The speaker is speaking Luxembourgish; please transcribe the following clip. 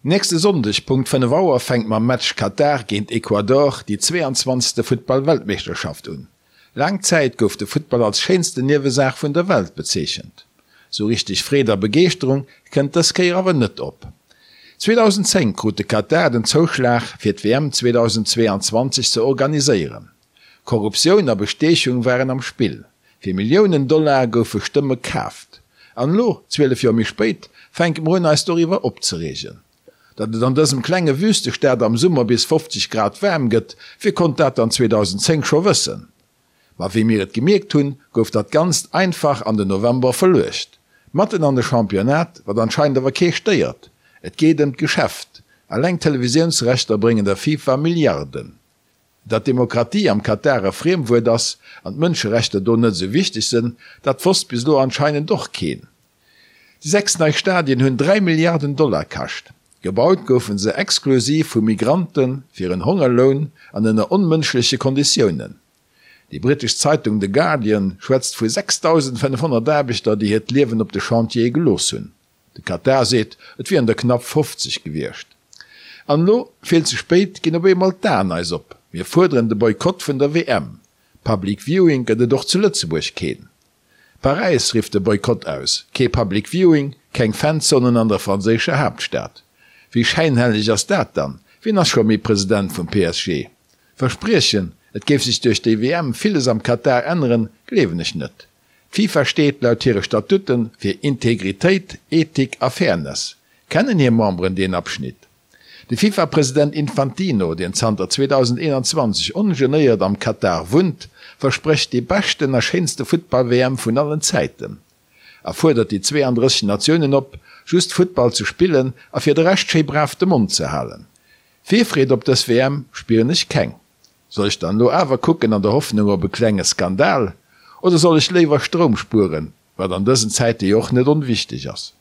Nächste Sonndeg Punkt 5 Auer fänkt mam Match Katar géint Ecuador déi 22. Futtball-Weltmeeschterschaft un. Laang Zäit gouf de Futtball als schéinsten Niewesaach vun der Welt bezeechent. Sou richteg Freed a Begeeschterung kënnt dës Kéier awer net op. 2010 krut de Katar den Zouschlag fir d'WM 2022 ze organiséieren. Korruptioun a Bestiechung waren am Spill. Fir Milliounen Dollar goufe Stëmme kaaft. An elo, 12 Joer méi spéit, fänke mer un eis doriwwer opzereegen. Datt et an dësem klenge Wüstestaat am Summer bis 50 Grad waarm gëtt, wie konnt dat dann 2010 scho wëssen? Ma wéi mir et gemierkt hunn, gouf dat Ganzt einfach an den November verluecht. Matten an de Championnat, wat anscheinend awer kee stéiert. Et geet ëm d'Geschäft. Eleng d'Televisiounsrechter bréngen der FIFA Milliarden. Datt Demokratie am Katar e Friemwuert ass an d'Mënscherechter do net esou wichteg sënn, dat wosst bis elo anscheinend och keen. Déi 6 nei Stadien hunn 3 Milliarden Dollar kascht. Gebaut goufe se exklusiv vu Migrante fir en Hongerloun an ënner onmënschleche Konditiounen. Déi brittesch Zeitung The Guardian schwätzt vu 6.500 Aarbechter, déi hiert Liewen op de Chantiere gelooss hunn. De Katar seet, et wieren der knapp 50 gewiescht. An elo, vill ze spéit, ginn op eemol d'Aen eis op. Mir fuerderen de Boykott vun der WM. Public Viewing gëtt et och zu Lëtzebuerg keen. Paräis rifft de Boykott aus. Kee Public Viewing, keng Fanzonen an der franséischer Haaptstad. Wéi schäinhelleg ass dat dann? Wien ass scho méi President vum PSG? Verspriechen, et géif sech duerch déi WM villes am Katar änneren, gleewen ech net. D'FIFA steet laut hire Statuten fir Integritéit, Ethik a Fairness. Kennen hir Memberen deen Abschnitt? De FIFA-President Infantino, deen zanter 2021 ongenéiert am Katar wunnt, versprécht déi beschten a schéinste Futtball-WM vun allen Zäiten a fuerdert déi 32 Natiounen op, just Futtball ze spillen a fir de Rescht schéi brav de Mond ze halen. Virfreed op dës WM spieren ech keng. Soll ech dann elo awer kucken an der Hoffnung op e klenge Skandal, oder soll ech léiwer Stroum spueren, wat an dësen Zäite jo och net onwichteg ass?